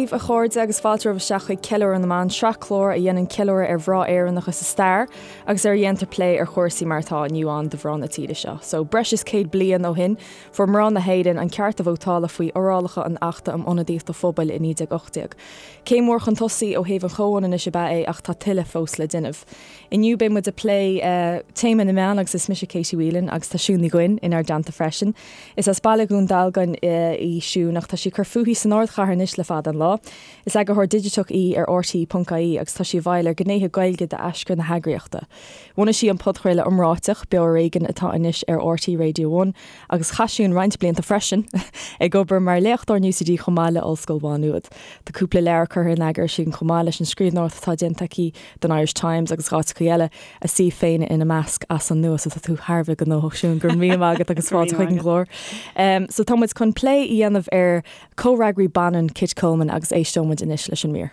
daoibh a chairde agus fáilte romhaibh isteach chuig Ceiliúradh na mBan, sraith clár a dhéanann ceiliúradh ar mhná Éireannacha sa stair agus ar a dhéantar plé ar chúrsaí mar atá inniu ann do mhná na tíre seo. So, breis is 100 bliain ó shin, fuair mná na hÉireann an ceart a vótála faoi fhorálacha an Achta um Ionadaíocht an Phobail i 1918. Céim mhór chun tosaigh ó thaobh an chomhionannais ab ea é ach tá tuilleadh fós le déanamh. Inniu beidh muid ag plé téama na meán agus is mise Katie Whelan agus tá Siún Ní Dhuinn inár dteannta freisin. Is as baile Dhún Dealgan í Siún ach tá sí ag cur fúithi san ardchathair anois le fada an lá. Is eagarthóir digiteach í ar RTÉ.ie agus tá sí i bhfeighil ar ghnéithe Gaeilge d'aschur na heagraíochta. Bhunaigh sí an podchraoladh iomráiteach, Beo Ar Éigean atá anois ar RTÉ Radio One agus chaith Siún roinnt blianta freisin ag obair mar léachtóir in UCD chomh maith le Ollscoil Mhá Nuad. Tá cúpla leabhar curtha in eagar aici chomh maith leis an scríbhneoireacht atá déanta aici don Irish Times agus áiteacha eile, a suíomh féin ina measc, as an nua. So tá tú thar a bheith gnóthach Siún, go raibh míle maith agat agus fáilte chuig an gclár. So tá muid chun plé a dhéanamh ar comhfhreagraí baineann Kit Coleman agus éisteoidh muid anois leis an mír.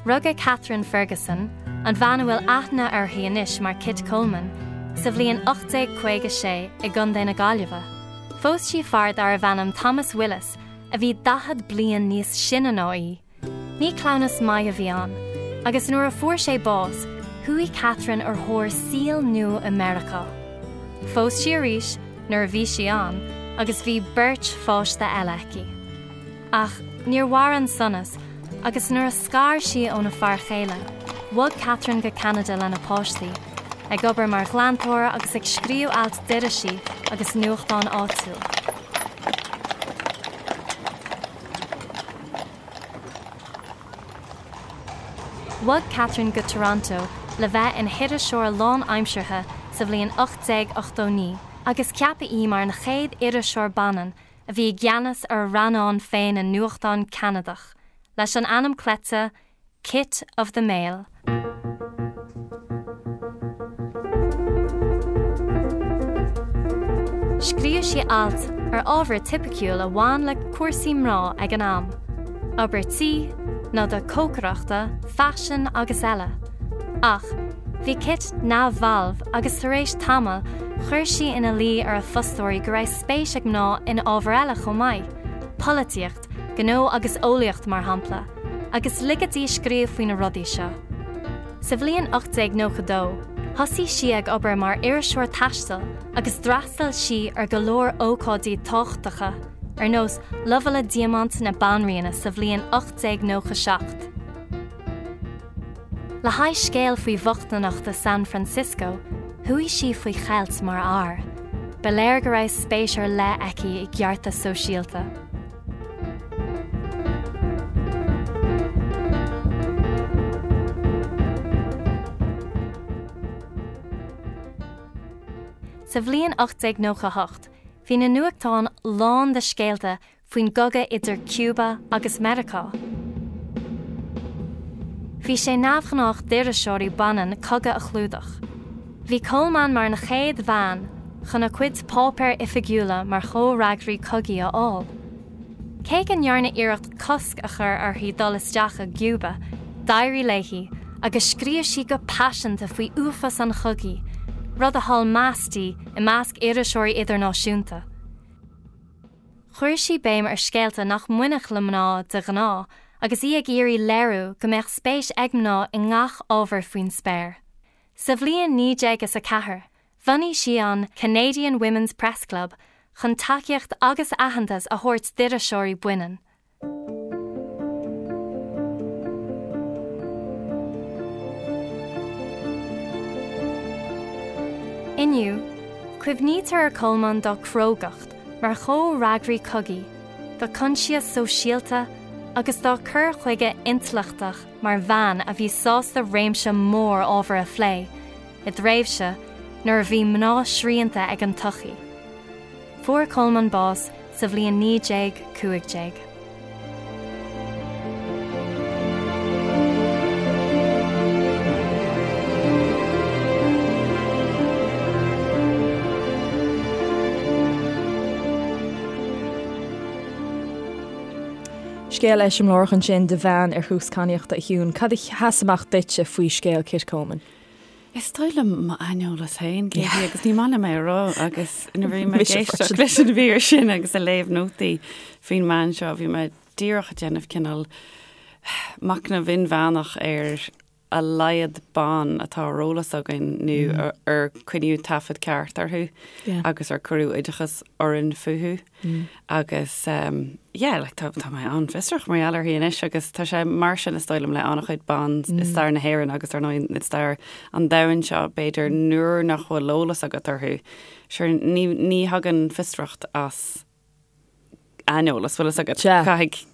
Rugadh Catherine Ferguson, an bhean a bhfuil aithne uirthi anois mar Kit Coleman, sa bhliain 1856 i gContae na Gaillimhe. Phós sí fear darbh ainm Thomas Willis a bhí 40 bliain níos sine ná í. Ní cleamhnas maith a bhí ann, agus nuair a fuair sé bás, chuaigh Catherine ar thóir saoil nua i Meiriceá. Phós sí arís nuair a bhí sí ann agus bhí beirt pháiste eile aici. Ach níor mhair an sonas agus nuair a scar sí óna fear chéile, bhog Catherine go Ceanada lena páistí, ag obair mar ghlantóir agus ag scríobh ailt d'irisí agus nuachtáin áitiúil. Bhog Catherine go Toronto le bheith ina hiriseoir lánaimseartha sa bhliain 1889 agus ceapadh í mar an chéad iriseoir baineann a bhí i gceannas ar a rannán féin i nuachtán Ceanadach, leis an ainm cleite Kit of the Mail. Scríobh sí ailt ar ábhar tipiciúil a bhain le cúrsaí mná ag an am, obair tí, noda cócaireachta, faisean agus eile. Ach bhí Kit neamhbhalbh agus tar éis tamaill chuir sí ina luí ar a fostóirí go raibh spéis ag mná in ábhair eile chomh maith, polaitíocht, gnó agus eolaíocht mar shampla, agus ligeadh di scríobh faoi na rudaí seo. Sa bhliain 1892, thosaigh sí ag obair mar iriseoir taistil agus d'fhreastail sí ar go leor ócáidí tábhachtacha, ar nós Lobhála Diamant na Banríona sa bhliain 1897. Le haghaidh scéal faoi bhochtaineacht i San Francisco, chuaigh sí faoi cheilt mar fhear. Ba léir go raibh spéis ar leith aici i gceartas sóisialta. Sa bhliain 1898, bhí na nuachtáin lán de scéalta faoin gcogadh idir Cuba agus Meiriceá. Bhí sé neamhghnách d'iriseoirí baineann cogadh a chlúdach. Bhí Coleman mar an chéad bhean chun a cuid páipéir oifigiúla mar chomhfhreagraí cogaidh a fháil. Cé go ndearnadh iarracht cosc a chur uirthi dul isteach i gCuba, d'éirigh léi agus scríobh sí go paiseanta faoi uafás an chogaidh, rud a thuill meas di i measc iriseoirí idirnáisiúnta. Chuir sí béim ar scéalta nach mbainfeadh le mná de ghnáth agus í ag iarraidh léiriú go mbeadh spéis ag mná i ngach ábhar faoin spéir. Sa bhliain 1904, bhunaigh sí an Canadian Women's Press Club chun tacaíocht agus aitheantas a thabhairt d'iriseoirí baineann. Inniu, cuimhnítear ar Coleman dá crógacht mar chomhfhreagraí cogaidh, dá coinsias sóisialta agus dá cur chuige intleachtach mar bhean a bhí sásta réimse mór ábhar a phlé, i dtréimhse nuair a bhí mná srianta ag an tsochaí. Fuair Coleman bás sa bhliain 1915. Scéal eiseamláireach ansin de bhean ar thús cadhnaíochta a Shiún. Cad a sheas amach duitse faoi scéal Kit Coleman? Is dóigh liom m'aineolas féin, Katie, agus ní maith liom é a rá agus nuair a bhí mé ag éisteacht leis an mhír sin agus ag léamh nótaí faoin mbean seo, bhí mé díreach ag déanamh cineál machnamh inmheánach ar a laghad ban atá ar eolas againn nó ar coinníodh taifead ceart orthu agus ar cuireadh oideachas orainn fúthu. Agus yeah, like tá tá mé an-fhiosrach mar gheall uirthi anois agus tá sé mar sin is dóigh liom le an-chuid ban i stair na hÉireann agus ar ndóigh i stair an domhain seo b'fhéidir nuair nach bhfuil eolas agat orthu. Sure ní ní thagann fiosracht as aineolas, bhfuil fhios agat. Sea. Caithfidh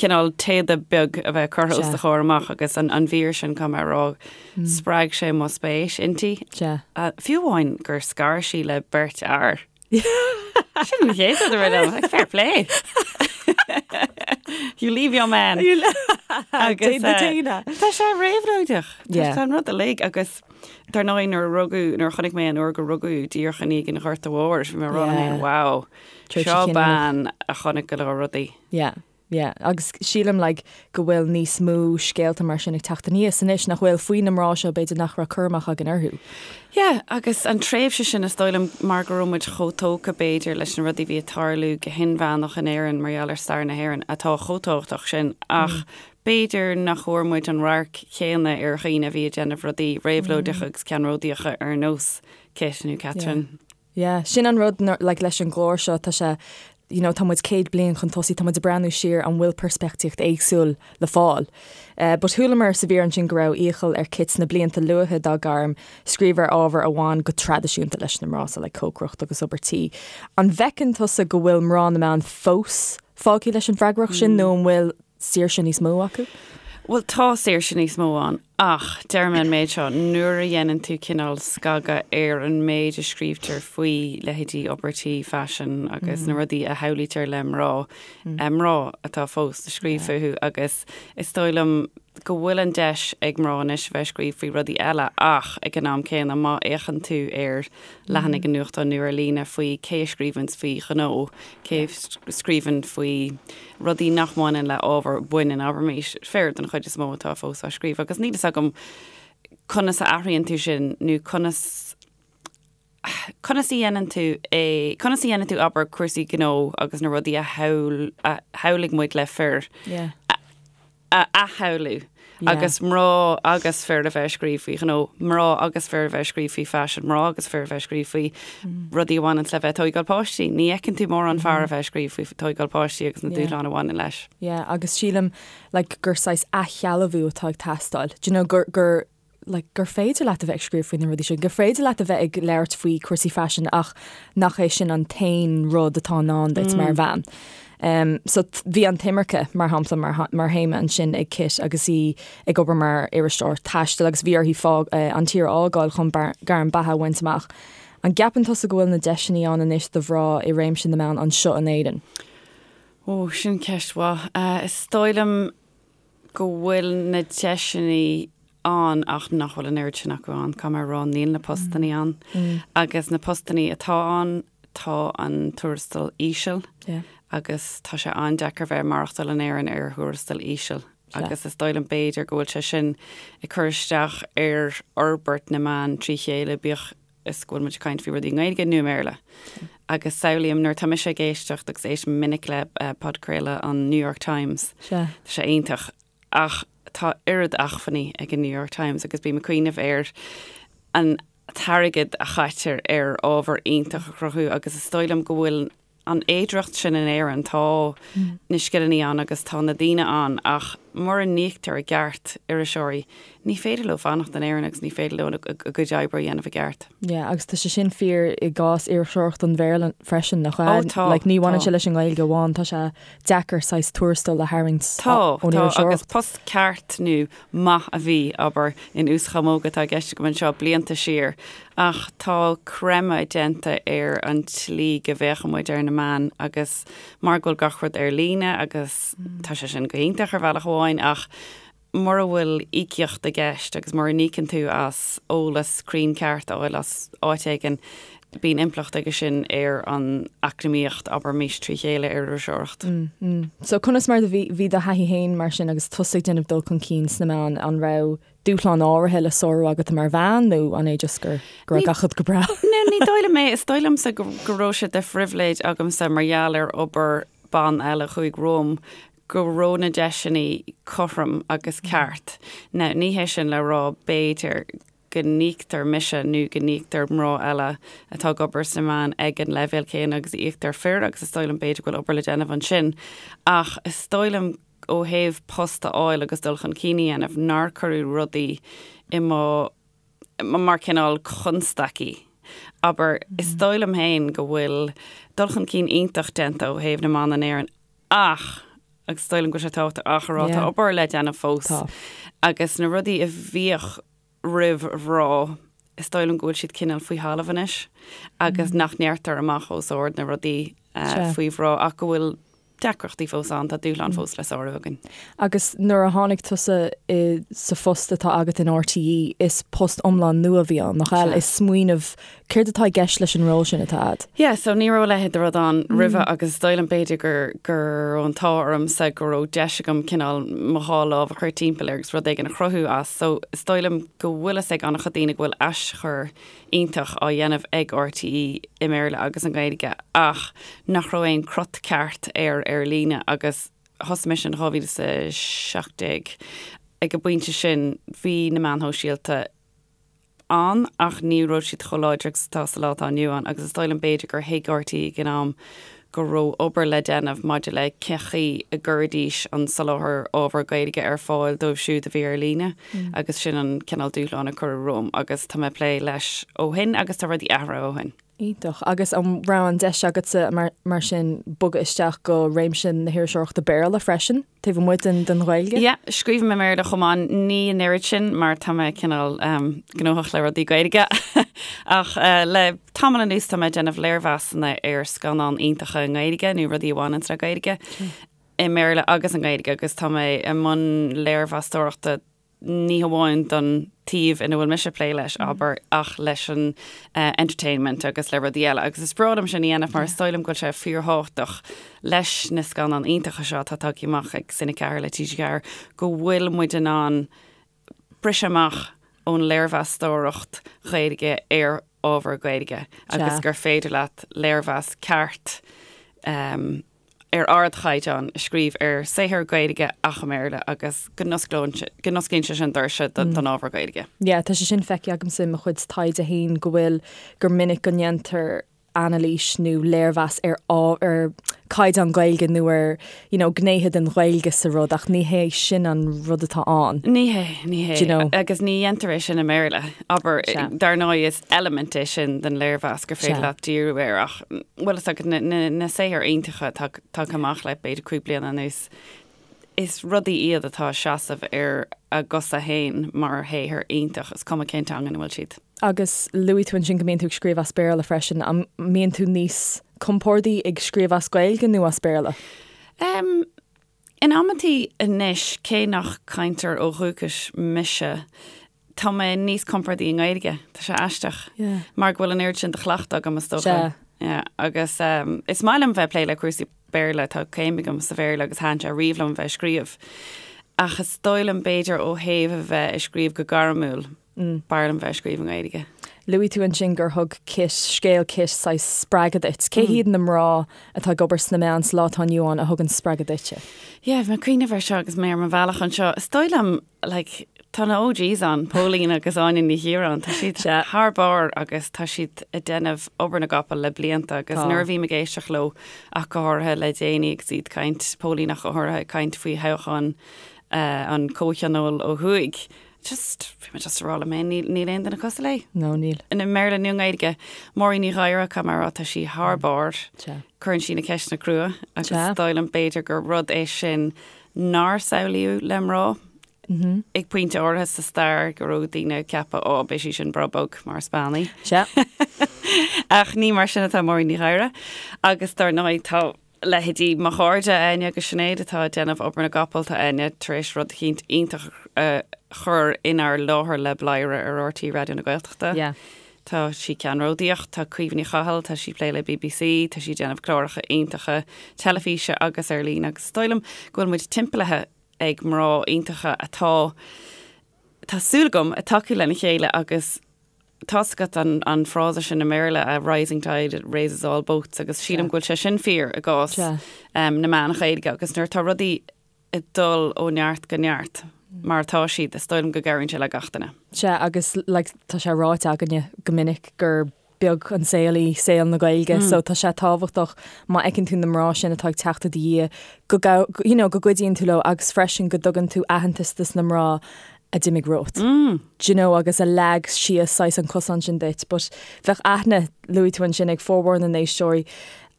cineál téada beag a bheith curtha os do chomhair amach agus an an mhír sin caithfidh mé a rá spreag sé mo spéis inti. Sea. Fiú amháin gur scar sí le beirt fhear. Sin an chéad rud a rith liom, like, fair play. You leave your man. Agus tá sé réabhlóideach. Tá an rud uilig agus dar ndóigh nuair a rugadh, nuair a chonaic mé an uair gur rugadh díreach i ndiaidh an Ghorta Mhóir, bhí mé ag rá liom féin, wow, seo bean a chonaic go leor rudaí. Yeah. Yeah, agus sílim like go bhfuil níos mó scéalta mar sin ag teacht aníos anois nach bhfuil faoi na mná seo b'fhéidir nach raibh cur amach againn orthu. Yeah, agus an tréimhse sin is dóigh liom mar go raibh muid chomh tógtha b'fhéidir leis na rudaí a bhí ag tarlú go hinmheánach in Éirinn mar gheall ar stair na hÉireann atá chomh tábhachtach sin ach b'fhéidir nach bhfuair muid an radharc chéanna ar dhaoine a bhí ag déanamh rudaí réabhlóideacha agus ceannródaíocha ar nós Kit nó Catherine. Yeah, sin an rud like leis an gclár seo, tá sé, you know, tá muid 100 bliain chun tosaigh, tá muid ag breathnú siar, an bhfuil peirspictíocht éagsúil le fáil? Eh, but chualamar sa mhír ansin go raibh iachall ar Kit sna blianta luatha dá gairm scríobh ar ábhair a bhain go traidisiúnta leis na mná, so like cócaireacht agus obair tí. An bhfeiceann tusa go bhfuil mná na meán fós fágtha leis an bhfreagracht sin nó an bhfuil saoirse níos mó acu? Bhuel, tá saoirse níos mó ann, ach deir mé an méid seo, nuair a dhéanann tú cineál scagadh ar an méid a scríobhtar faoi leithéidí obair tí, faisean agus na rudaí a shamhlaítear le mná, mná atá fós ag scríobh fúthu agus is dóigh liom go bhfuil an deis ag mná anois a bheith ag scríobh faoi rudaí eile ach ag an am céanna má fhéachann tú ar leathanaigh an nuachtáin nó ar líne faoi cé a scríobhanns faoi ghnó, cé a scríobhann faoi rudaí nach mbaineann le ábhar baineann, abraimis, fir den chuid is mó atá fós á scríobh agus níl fhios agam conas a athraíonn tú sin nó conas conas a dhéanann tú é, conas a dhéanann tú abair cúrsaí gnó agus na rudaí a shamhail a shamhlaigh muid le fir Yeah. a athshamhlú agus mná agus fir a bheith ag scríobh faoi ghnó, mná agus fir a bheith ag scríobh faoi faisean, mná agus fir a bheith ag scríobh faoi rudaí a bhaineann le bheith ag tóigeáil páistí. Ní fheiceann tú mórán fear a bheith ag scríobh faoi tóigeáil páistí agus na dúshláin a bhaineann leis. Yeah, agus sílim like gur saghas athshealbhú atá ag teastáil. Do you know gur gur like gur féidir leat a bheith ag scríobh faoi na rudaí sin, gur féidir leat a bheith ag labhairt faoi cúrsaí faisin ach nach é sin an t-aon rud atá i ndán duit mar bhean. Um, so bhí an t-imirce mar shampla mar, mar théama ansin ag Kit agus í ag obair mar iriseoir taistil agus bhí uirthi fág, uh, an tír a fhágáil chun gairm beatha a bhaint amach. An gceapann tusa go bhfuil na deiseanna ann anois do mhná i réimse na meán anseo in Éirinn? Ó, sin ceist mhaith. Uh, is dóigh liom go bhfuil na deiseanna ann ach nach bhfuil an oiread sin acu ann. Caithfidh mé a rá, níl na postannaí ann. Agus na postannaí atá ann, tá an tuarastal íseal agus tá sé an-deacair bheith ag maireachtáil in Éirinn ar thuarastal íseal. Agus is dóigh liom b'fhéidir go bhfuil sé sin ag cur isteach ar fhorbairt na meán trí chéile, bíodh is go bhfuil muid ag caint faoi rudaí i nGaeilge nó i mBéarla. Agus samhlaím nuair atá mise ag éisteacht agus éistim minic le podchraoladh an New York Times, Sea. tá sé iontach ach tá oiread acmhainní ag an New York Times agus bím ag cuimhneamh ar an t-airgead a chaitear ar ábhar iontach a chruthú agus is dóigh liom go bhfuil an fhéidearthacht sin in Éirinn, tá na scileanna ann agus tá na daoine ann ach mura n-íoctar i gceart iriseoirí, ní féidir leo fanacht in Éirinn agus ní féidir leo a gcuid oibre a dhéanamh i gceart. Yeah, agus tá sé sin fíor i gcás iriseoireacht an Bhéarla freisin, nach ea? Ó tá, Like, ní bhaineann sé leis an nGaeilge amháin, tá sé deacair saghas tuarastal a tharraingt Tá, ón tá, agus post ceart nó maith a bhí, abair, in uaschamóga atá i gceist agam anseo, blianta siar, ach tá creimeadh déanta ar an tslí go bhféachann muid ar na meáin agus mar go bhfuil gach rud ar líne agus tá sé sin go hiontach ar bhealach amháin ach mura bhfuil íocaíocht i gceist agus mura n-íocann tú as eolas cruinn ceart a fháil as áit éigin. Bíonn impleacht aige sin ar an eacnamaíocht, abraimis, trí chéile ar iriseoireacht. So conas mar a bhí bhí do thaithí féin mar sin agus tusa ag déanamh dul chun cinn sna meáin, an raibh dúshláin áirithe le sárú agat mar bhean nó an é just gur go raibh gach rud go breá? No, ní dóigh liom é. Is dóigh liomsa go go raibh sé de phribhléid agamsa mar gheall ar obair ban eile a chuaigh romham go raibh na deiseanna cothrom agus ceart. Now, ní hé sin le rá b'fhéidir go n-íoctar mise nó go n-íoctar mná eile atá ag obair sna meáin ag an leibhéal céanna agus a íoctar fir agus is dóigh liom b'fhéidir go bhfuil obair le déanamh ansin. Ach is dóigh liom ó thaobh post a fháil agus dul chun cinn a dhéanamh nár cuireadh rudaí i mo mar cineál constaicí. Abair, is dóigh liom féin go bhfuil dul chun cinn iontach déanta ó thaobh na mban in Éirinn ach, agus is dóigh liom go bhfuil sé tábhachtach ach a rá, tá obair le déanamh fós. Agus na rudaí a bhíodh roimh mhná, is dóigh liom go bhfuil siad cineál faoi thalamh anois agus nach ndeirtear amach os ard na rudaí faoi mhná ach go bhfuil deacrachtaí fós ann, tá dúshlán fós le sárú againn. Agus nuair a tháinig tusa i sa phost atá agat in RTÉ, is post iomlán nua a bhí ann, nach ea? Is smaoineamh, céard atá i gceist leis an ról sin atá a'd? Yeah, so ní raibh a leithéid de rud ann roimhe agus is dóigh liom b'fhéidir gur go raibh an t-ádh ormsa go raibh deis agam cineál mo dhá lámh a chur timpeall air agus rud éigin a chruthú as. So is dóigh liom go bhfuil fhios ag an-chuid daoine go bhfuil aschur iontach á dhéanamh ag RTÉ i mBéarla agus i nGaeilge ach nach raibh aon crot ceart air ar líne agus thosaigh mise in 2017 ag an bpointe sin bhí na meáin shóisialta ann ach ní raibh siad chomh láidir agus atá sa lá atá inniu ann agus is dóigh liom b'fhéidir gur thuig RTÉ ag an am go raibh obair le déanamh maidir le cén chaoi a gcuirfidís an soláthar ábhar Gaeilge ar fáil dóibh siúd a bhí ar líne agus sin an cineál dúshlán a cuireadh romham agus tá mé ag plé leis ó shin agus tá rudaí athraithe ó shin. Iontach. Agus an raibh an deis agatsa mar sin bogadh isteach go réimse na hiriseoireachta Béarla freisin? Taobh amuigh den den Ghaeilge? Yeah, scríobhaim i mBéarla chomh maith, ní an oiread sin mar tá mé cineál gnóthach le rudaí Gaeilge. Ach le tamall anuas tá mé ag déanamh léirmheasanna ar scannáin iontacha i nGaeilge nó rudaí a bhaineann le Gaeilge i mBéarla agus i nGaeilge agus tá mé i mbun léirmheastóireachta ní hamháin don taobh ina bhfuil mise ag plé leis, abair, ach leis an entertainment agus le rudaí eile. Agus is breá liom sin a dhéanamh mar is dóigh liom go bhfuil sé fíorthábhachtach leis na scannáin iontacha seo atá tagtha amach ag Cine 4 le TG4 go bhfuil muid in ann briseadh amach ón léirmheastóireacht Ghaeilge ar ábhar Gaeilge agus gur féidir leat léirmheas ceart ar ardchaighdeán a scríobh ar saothar Gaeilge ach i mBéarla agus go n-osclaíonn go n-osclaíonn sé sin doirse don ábhar Gaeilge. Yeah, tá sé sin feicthe agamsa i mo chuid taighde féin go bhfuil, gur minic go ndéantar anailís nó léirmheas ar ar caighdeán Gaeilge nó ar you know, gnéithe den Ghaeilge sa rud ach ní hé sin an rud atá ann. Ní hé, ní hé. Do you know? Agus ní dhéantar é sin i mBéarla. Abair, dar ndóigh is eilimint é sin den léirmheas gur féidir leat díriú air ach bhfuil fhios agat na saothair iontacha atá tagtha amach le b'fhéidir 5 bliana anuas, is rudaí iad atá ag seasamh ar a gcosa féin mar shaothar iontach, is cuma cén teanga ina bhfuil siad. Agus luaigh tú ansin go mbíonn tú ag scríobh as Béarla freisin, an mbíonn tú níos compórdaí ag scríobh as Gaeilge nó as Béarla? Um, In amantaí anois, cé nach cainteoir ó dhúchas mise, tá mé níos compordaí i nGaeilge. Tá sé aisteach. Mar go bhfuil an oiread sin de chleachtadh agam, is dócha. Yeah, agus is maith liom bheith ag plé le cúrsaí Béarla, tá céim agam sa Bhéarla agus thaitin sé riamh liom bheith ag scríobh. Ach is dóigh liom b'fhéidir ó thaobh a bheith ag scríobh go gairmiúil, B'fhearr liom bheith ag scríobh i nGaeilge. Luaigh tú ansin gur thug Kit, scéal Kit, saghas spreagadh duit. Cé hiad na mná atá ag obair sna meáin sa lá atá inniu ann a thugann spreagadh duitse? Yeah, bhí mé ag cuimhneamh air seo agus mé ar mo bhealach anseo. Is dóigh liom, like, tá na OGs ann, Póilín agus Áine Ní Chiaráin, tá siad thar barr agus tá siad ag déanamh obair na gcapall le blianta agus nuair a bhím ag éisteacht leo ach go háirithe le déanaí agus iad ag caint, Póilín ach go háirithe ag caint faoi thoghchán an Chomhthionóil ó thuaidh, Just, bhí mé just ag rá liom féin, níl, níl aon duine cosúil léi. No, níl. I mBéarla nó i nGaeilge. Máirín Ní Ghadhra, caithfidh mé a rá, tá sí thar barr. Sea. Cuireann sí na ceisteanna crua agus Sea. is dóigh liom b'fhéidir gur rud é sin nár samhlaíodh le mná. Ag pointe áirithe sa stair go raibh daoine ag ceapadh, ó, beidh sí sin breá bog mar is bean í. Sea. Ach ní mar sin atá Máirín Ní Ghadhra. Agus dar ndóigh tá leithéidí mo chairde, Áine agus Sinéad, atá ag déanamh obair na gcapall, tá Áine tar éis rud eicínt iontach a chur inár láthair le Bladhaire ar RTÉ Raidió na Gaeltachta. Yeah. Tá sí ceannródaíoch, tá Caoimhe Ní Chathail, tá sí ag plé le BBC, tá sí ag déanamh cláracha iontacha teilifíse agus ar líne agus is dóigh liom go bhfuil muid timpeallaithe ag mná iontacha atá, tá súil agam, ag tacú lena chéile agus tá's agat an an frása sin i mBéarla, a rising tide raises all boats agus sílim go bhfuil sé sin fíor i gcás na meán Ghaeilge agus nuair atá rudaí ag dul ó neart go neart mar atá siad, is dóigh liom go gcabhraíonn sé le gach duine. Sea, agus like tá sé ráite againne go minic gur beag an saol í saol na Gaeilge so tá sé tábhachtach má fheiceann tú na mná sin atá ag teacht i do dhiaidh go you know go gcuidíonn tú leo agus freisin go dtugann tú aitheantas dos na mná a d'imigh romhat. Do you know agus a leag síos saghas an cosán sin duit but bheadh aithne, luaigh tú ansin, ag formhór na n-éisteoirí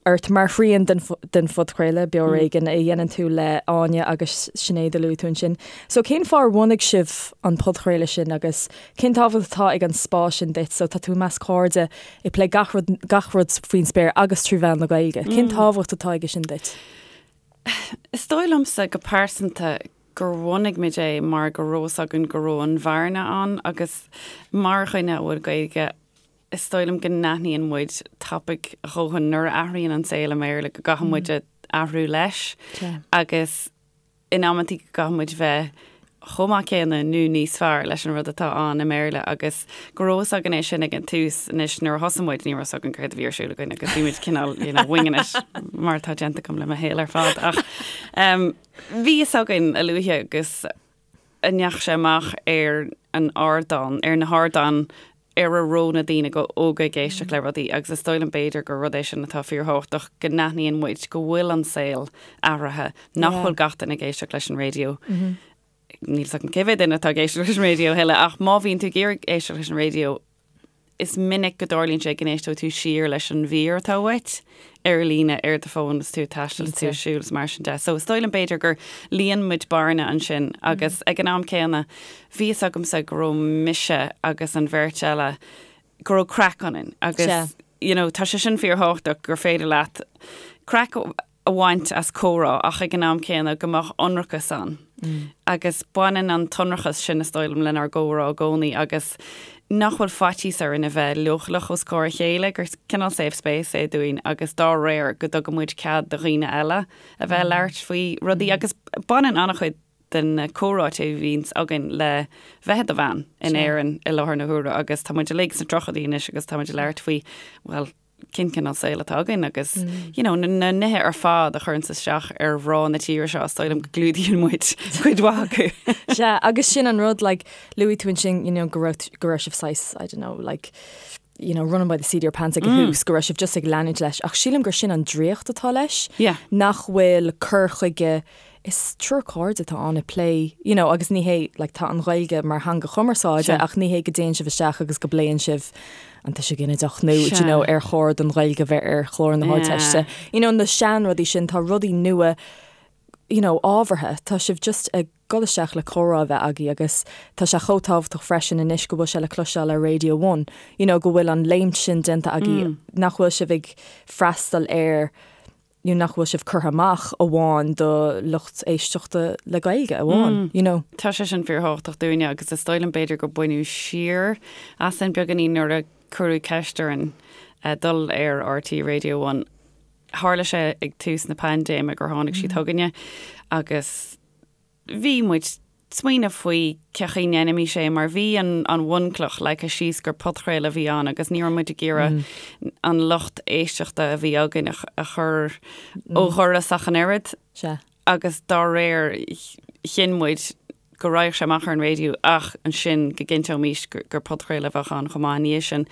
ort mar thrian den den phodchraoladh, Beo Ar Éigean, a dhéanann tú le Áine agus Sinéad a luaigh tú ansin. So cén fáth ar bhunaigh sibh an podchraoladh sin agus cén tábhacht atá ag an spás sin duit? So tá tú i measc cairde ag plé gach rud gach rud faoin spéir agus trí mheán na Gaeilge. Cén tábhacht atá aige sin duit? Is dóigh liomsa go pearsanta gur bhunaigh muid é mar go raibh fhios againn go raibh an bhearna ann agus mar dhuine a bhfuil Gaeilge is dóigh liom go n-aithníonn muid tapaidh a dhóthain nuair a athraíonn an saol i mBéarla go gcaithfidh muid athrú leis agus in amantaí go gcaithfidh muid bheith chomh maith céanna nó níos fearr leis an rud atá ann i mBéarla agus go raibh fhios againn é sin ag an tús. Anois nuair a thosaigh muid ní raibh fhios againn céard a bhí ar siúl againn agus bhí muid cineál you know winging it mar atá déanta agam le mo shaol ar fad ach um, bhí fhios againn a luaithe agus a ndeachaigh sé amach ar an ardán, ar na hardáin ar a raibh na daoine óga ag éisteacht le rudaí agus is dóigh liom b'fhéidir gur rud é sin atá fíorthábhachtach, go n-aithníonn muid go bhfuil an saol athraithe, nach bhfuil gach duine ag éisteacht leis an raidió. Níl fhios agam cé mhéad duine atá ag éisteacht leis an raidió a thuilleadh ach má bhíonn tú ag iarraidh éisteacht leis an raidió, Is minic go dtarlaíonn sé go n-éisteoidh tú siar leis an mhír atá uait ar líne ar do fón is tú ag taisteal is tú ag siúl is mar sin de. So is dóigh liom b'fhéidir gur líon muid bearna ansin agus ag an am céanna bhí fhios agamsa go raibh mise agus an bheirt eile go raibh craic ionainn agus you know tá sé sin fíorthábhachtach gur féidir leat craic a bhaint as comhrá ach ag an am céanna go mbeadh ionracas ann. Agus baineann an t-ionracas sin, is dóigh liom, lenár gcomhrá i gcónaí agus nach bhfuil faitíos orainn a bheith leochaileach os comhair a chéile, gur cineál safe space é dúinn agus dá réir go dtugann muid cead do dhaoine eile a bheith ag labhairt faoi rudaí agus baineann an-chuid de na comhráite a bhíonns againn le bheith i do bhean in Éirinn i láthair na huaire agus tá muid uilig sna tríochaidí anois agus tá muid ag labhairt faoi, bhuel, cén cineál saol atá againn agus you know, na nithe ar fad a chuireanns isteach ar mhná na tíre seo, is dóigh liom go gclúdaíonn muid cuid mhaith acu. Sea, agus sin an rud, like, luaigh tú ansin, you know, go raibh, go raibh sibh saghas, I don't know, like, you know, running by the seat of your pants ag an tús, go raibh sibh just ag leanúint leis, ach sílim gur sin an draíocht atá leis, Yeah. nach bhfuil cur chuige Is triúr cairde atá ann ag plé, you know, agus ní hé, like, tá an Ghaeilge mar theanga chumarsáide ach ní hé go dtéann sibh isteach agus go bpléann sibh an tuiseal ginideach nó, do you know, ar chóir don Ghaeilge bheith ar chlár na hArdteiste. You know, na seanrudaí sin, tá rudaí nua, you know, ábhartha. Tá sibh just ag dul isteach le comhrá a bheith agaibh agus tá sé chomh tábhachtach freisin anois go bhfuil sé le cloisteáil ar Radio One, you know, go bhfuil an léimt sin déanta agaibh, nach bhfuil sibh ag freastal ar you know, nach bhfuil sibh curtha amach amháin do lucht éisteachta le Gaeilge amháin, you know. Tá sé sin fíorthábhachtach dúinne agus is dóigh liom b'fhéidir gur baineadh siar asainn beagáinín nuair a cuireadh ceist orainn dul ar RTÉ Radio One. Tharla sé ag tús na paindéime gur tháinig siad chugainne agus bhí muid ag smaoineamh faoi cén chaoi a ndéanfaimis é mar bhí an an bhunchloch leagtha síos gur podchraoladh a bhí ann agus ní raibh muid ag iarraidh an lucht éisteachta a bhí againn a chur ó dhoras ach an oiread. Sea. Agus dá réir chinn muid go raghadh sé amach ar an raidió ach ansin go gcinnteoimis gur podchraoladh a bheadh ann chomh maith ina dhiaidh sin.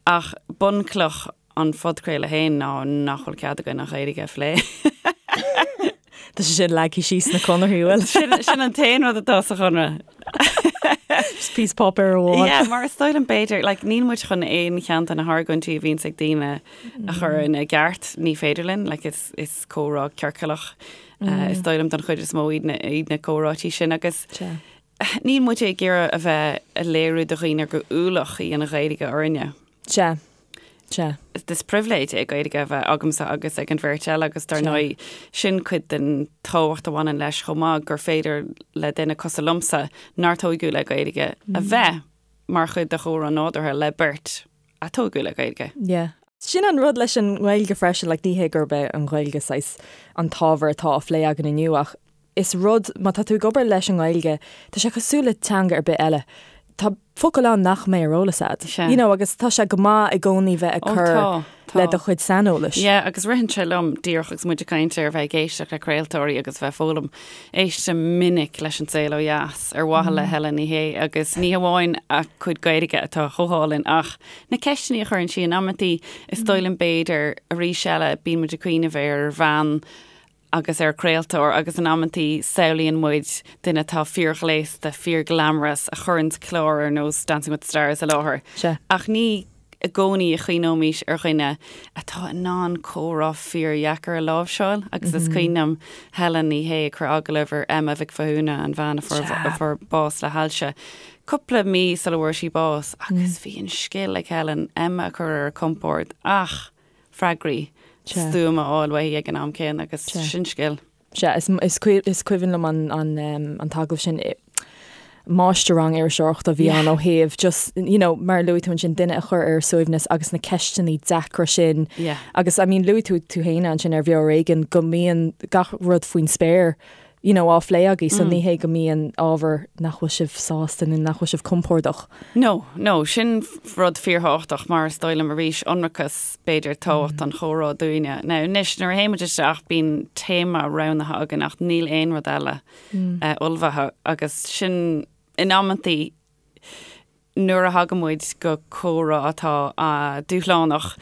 Ach bunchloch an phodchraoladh féin ná nach bhfuil cead againn an Ghaeilge a phlé. Tá sé sin leagtha síos sna conarthaí, bhfuil? Sin, sin an t-aon rud atá sa chonradh. Just píosa páipéir amháin. Yeah, mar is dóigh liom b'fhéidir, like, níl muid chun aon cheann de na hargóintí a bhíonns ag daoine a chur ina gceart, ní féidir linn, like, is, is comhrá ciorcalach, uh, is dóigh liom don chuid is mó iad na, iad na comhráití sin agus Sea. níl muid ag iarraidh a bheith ag léiriú do dhaoine gur ualach í an Ghaeilge orainne. Sea. Sea. Is pribhléid é Gaeilge a bheith agamsa agus ag an bheirt eile agus dar ndóigh sin cuid den tábhacht a bhaineann leis chomh maith gur féidir le duine cosúil liomsa nár tóigeadh le Gaeilge a bheith mar chuid de chomhrá nádúrtha le beirt a tógadh le Gaeilge. Yeah. Sin an rud leis an nGaeilge freisin, like ní hé gurb é an Ghaeilge saghas an t-ábhar atá á phlé againn inniu ach is rud, má tá tú ag obair leis an nGaeilge, tá sé cosúil le teanga ar bith eile. Tá focail ann nach mbeidh ar eolas agat. Sea. You know, agus tá sé go maith i gcónaí bheith ag Ó, cur tá, tá. le do chuid saineolais. Yeah, agus ritheann sé liom díreach agus muid ag caint ar bheith ag éisteacht le craoltóirí agus bheith ag foghlaim, éistim minic leis An Saol Ó Dheas ar mhaithe le Helen Ní Shé agus ní hamháin a cuid Gaeilge atá chomh hálainn ach na ceisteanna a chuireann sí in amantaí, is dóigh liom b'fhéidir arís eile bíonn muid ag cuimhneamh ar bhean agus ar chraoltóir agus in amantaí samhlaíonn muid duine atá fíorghléasta, fíorghlamorous a chuireann clár ar nós Dancing with the Stars i láthair. Sea. Ach ní i gcónaí a chuimhneoimís ar dhuine atá in ann comhrá fíordheacair a láimhseáil agus is cuimhin liom Helen Ní Shé ag cur agallamh ar Emma Mhic Mhathúna, an bhean a fuair a fuair bás le hailse, cúpla mí sula bhfuair sí bás agus bhí an scil ag Helen Emma a chur ar a compord ach freagraí stuama a fháil uaithi ag an am céanna agus sin scil. Sea, is is cuimhin liom an an an t-agallamh sin. Máistir-rang iriseoireachta a bhí ann ó thaobh just, you know, mar a luaigh tú ansin, duine a chur ar a suaimhneas agus na ceisteanna deacra sin. Agus I mean luaigh tú tú féin ansin ar Bheo Ar Éigean go mbíonn gach rud faoin spéir you know, á phlé agaibh, so ní hé go mbíonn ábhar nach bhfuil sibh sásta nó nach bhfuil sibh compordach. No, no, sin rud fíorthábhachtach mar is dóigh liom arís ionracas, b'fhéidir, tábhacht an chomhrá dúinne. Now, anois, nuair a théann muid isteach, bíonn téama roghnaithe againn ach níl aon rud eile ullmhaithe agus sin in amantaí nuair a thagann muid go comhrá atá dúshlánach,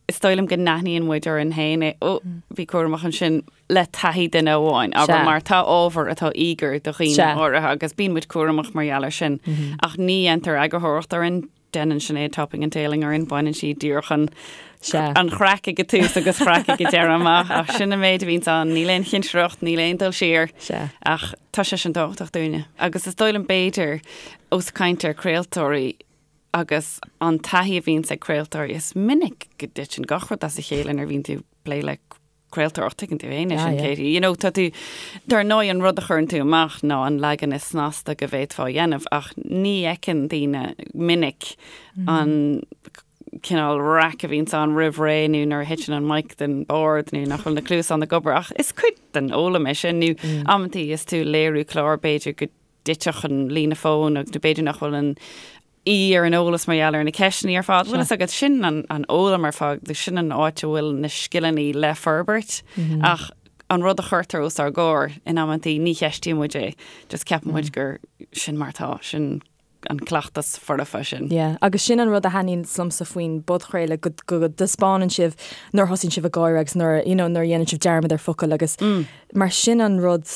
is dóigh liom go n-aithníonn muid orainn féin é, ó, bí cúramach ansin le taithí duine amháin, abair, mar tá ábhar atá íogair do dhaoine áirithe agus bíonn muid cúramach mar gheall air sin. Ach ní dhéantar eagarthóireacht orainn, déanann Sinéad topping and tailing orainn, baineann sí díreach an an chraic ag an tús agus craic ag an deireadh amach, ach sin an méid a bhíonns ann, níl aon chinsireacht, níl aon dul siar, ach tá sé sin tábhachtach dúinne. Agus is dóigh liom b'fhéidir, ós ag caint ar craoltóirí agus an taithí a bhíonns ag craoltóirí, is minic go dtiteann gach rud as a chéile nuair a bhíonn tú ag plé le craoltóireacht, tuigeann tú féin é sin, Katie. You know, tá tú, dar ndóigh an rud a chuireann tú amach ná an leagan is snasta go bhféadfá a dhéanamh ach ní fheiceann daoine minic an cineál raic a bhíonns ann roimh ré nó nuair a thiteann an mic den bord nó nach bhfuil na cluasáin ag obair ach is cuid den fhoghlaim é sin nó amantaí is tú ag léiriú clár b'fhéidir go dtitfeadh an líne fóin agus nó b'fhéidir nach bhfuil an aoi ar an eolas mar gheall ar na ceisteanna ar fad. Bhfuil fhios agat sin an an fhoghlaim ar fad, sin an áit a bhfuil na scileanna le forbairt mm -hmm. ach an rud a chuirtear os ár gcomhair in amantaí ní cheistíonn muid é, just ceapann muid gur sin mar tá sin an cleachtas foirfe sin. Yeah, agus sin an rud a thaitníonn liomsa faoin bpodchraoladh go go dtaispeánann sibh nuair a thosaíonn sibh ag gáire agus nuair you know, nuair a dhéanann sibh dearmad ar focal agus mm. mar sin an rud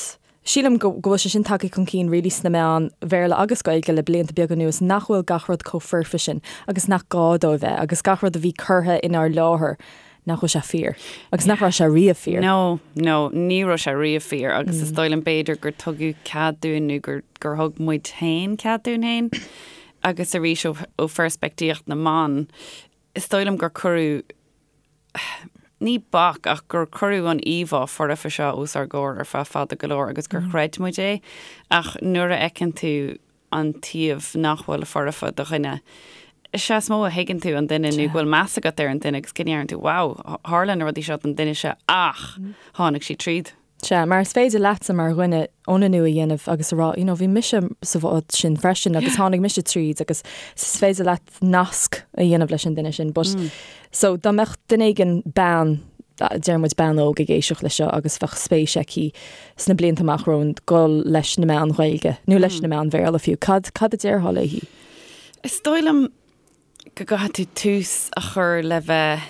Sílim go bhfuil sé sin tagtha chun cinn really sna meáin Bhéarla agus Gaeilge le blianta beaga anuas nach bhfuil gach rud chomh foirfe sin agus nach gá dó a bheith agus gach rud a bhí curtha inár láthair nach bhfuil sé fíor agus nach raibh sé riamh fíor. No, no, ní raibh sé riamh fíor agus is dóigh liom b'fhéidir gur tugadh cead dúinn nó gur gur thug muid féin cead dúinn féin agus arís ó ó pheirspictíocht na mban is dóigh liom gur cuireadh ní bac ach gur cuireadh an íomhá foirfe seo os ár gcomhair ar feadh fada go leor agus gur chreid muid é ach nuair a fheiceann tú an taobh nach bhfuil foirfe de dhuine, is ea is mó a thuigeann tú an duine nó go bhfuil meas agat ar an duine agus go ndeireann tú wow, tharla na rudaí seo don duine seo ach tháinig sí tríd. Sea, mar is féidir leatsa mar dhuine ionannú a dhéanamh agus a rá, you know, bhí mise sa bhád sin freisin agus tháinig mise tríd agus is féidir leat nasc a dhéanamh leis an duine sin. But, so, dá mbeadh duine éigin bean, deir muid bean óg ag éisteacht leis seo agus bheadh spéis aici sna blianta amach romhainn dul leis na meáin Ghaeilge nó leis na meáin Bhéarla fiú, cad, cad a déarfá léi? Is dóigh liom go gcaithfidh tú tús a chur le bheith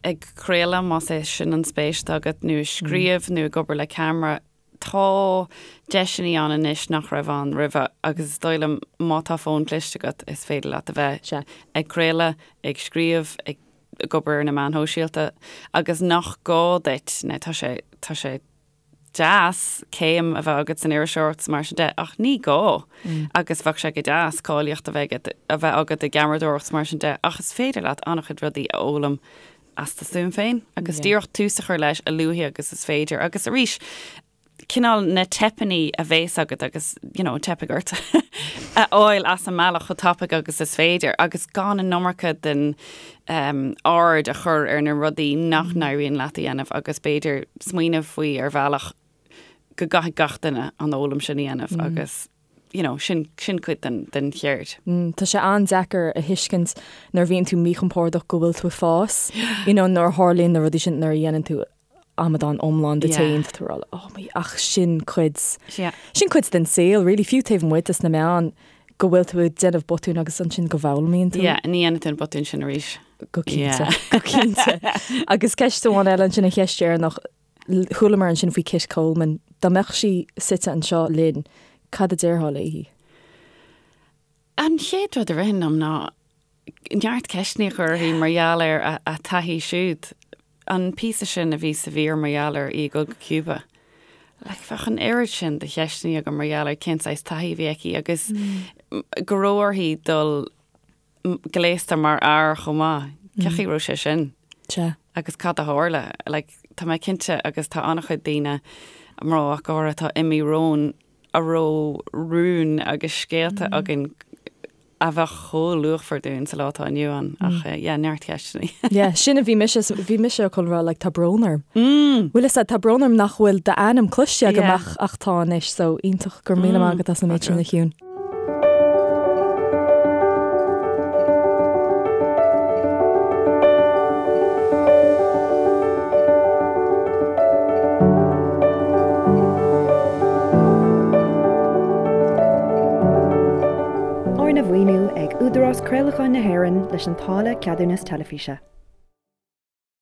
ag craoladh, más é sin an spéis atá agat, nó ag scríobh nó ag obair le ceamara, tá deiseanna ann anois nach raibh ann roimhe agus is dóigh liom má tá fón cliste agat is féidir leat a bheith ag craoladh, ag scríobh, ag obair ar na meáin shóisialta agus nach gá duit, nó tá sé, tá sé deas céim a bheith agat san iriseoireacht is mar sin de, ach ní gá. Agus bheadh sé go deas cáilíocht a bheith agat, a bheith agat i gceamaradóireacht is mar sin de, ach is féidir leat an-chuid rudaí a fhoghlaim as do stuaim féin agus díreach tús a chur leis a luaithe agus is féidir. Agus arís, cineál na teipeanna a bhéas agat agus, you know, teipfidh ort a fháil as an mbealach chomh tapaidh agus is féidir agus gan an iomarca den um, aird a chur ar na rudaí nach n-éiríonn leat a dhéanamh agus b'fhéidir smaoineamh faoi ar bhealach go gcaithfidh gach duine an fhoghlaim sin a dhéanamh agus you know, sin, sin cuid den, den cheird. Mm, tá sé an-deacair a thuiscint nuair a bhíonn tú míchompordach go bhfuil tú ag fás, you know, nuair a tharlaíonn na rudaí sin nuair a dhéanann tú amadán iomlán díot féin tá tú ag rá oh my ach sin cuid Yeah. sin cuid den saol really fiú taobh amuigh des na meáin go bhfuil tú ag déanamh botún agus ansin go bhfoghlaimíonn tú. Yeah, ní dhéanann tú an botún sin arís. Go cinnte, Yeah. go cinnte. Agus ceist amháin eile ansin an cheist dheireanach chualamar ansin faoi Kit Coleman, dá mbeadh sí suite anseo linn, cad a déarfá léi? An chéad rud a ritheann liom ná neart ceisteanna a chur uirthi mar gheall ar a taithí siúd. An píosa sin a bhí sa mhír mar gheall ar í ag dul go Cuba. Like, bheadh an oiread sin de cheisteanna agam mar gheall ar cén saghas taithí a bhí aici agus go raibh uirthi dul gléasta mar fhear chomh maith. Cén chaoi a raibh sé sin? Sea. Agus cad a tharla? Like, tá mé cinnte agus tá an-chuid daoine, mná ach go háirithe, atá imithe romhainn a raibh rúin agus scéalta againn a bheadh chomh luachmhar dúinn sa lá atá inniu ann. Ach yeah, neart ceisteanna. Yeah, sin a bhí mise, bhí mise chun rá like tá brón orm. Bhfuil fhios a'd, tá brón orm nach bhfuil d'ainm cloiste agam ach ach tá anois, so iontach go raibh míle maith agat as an méid sin a Shiún. Arna mhaoiniú ag Údarás Craolacháin na hÉireann leis an táille Ceadúnas Teilifíse.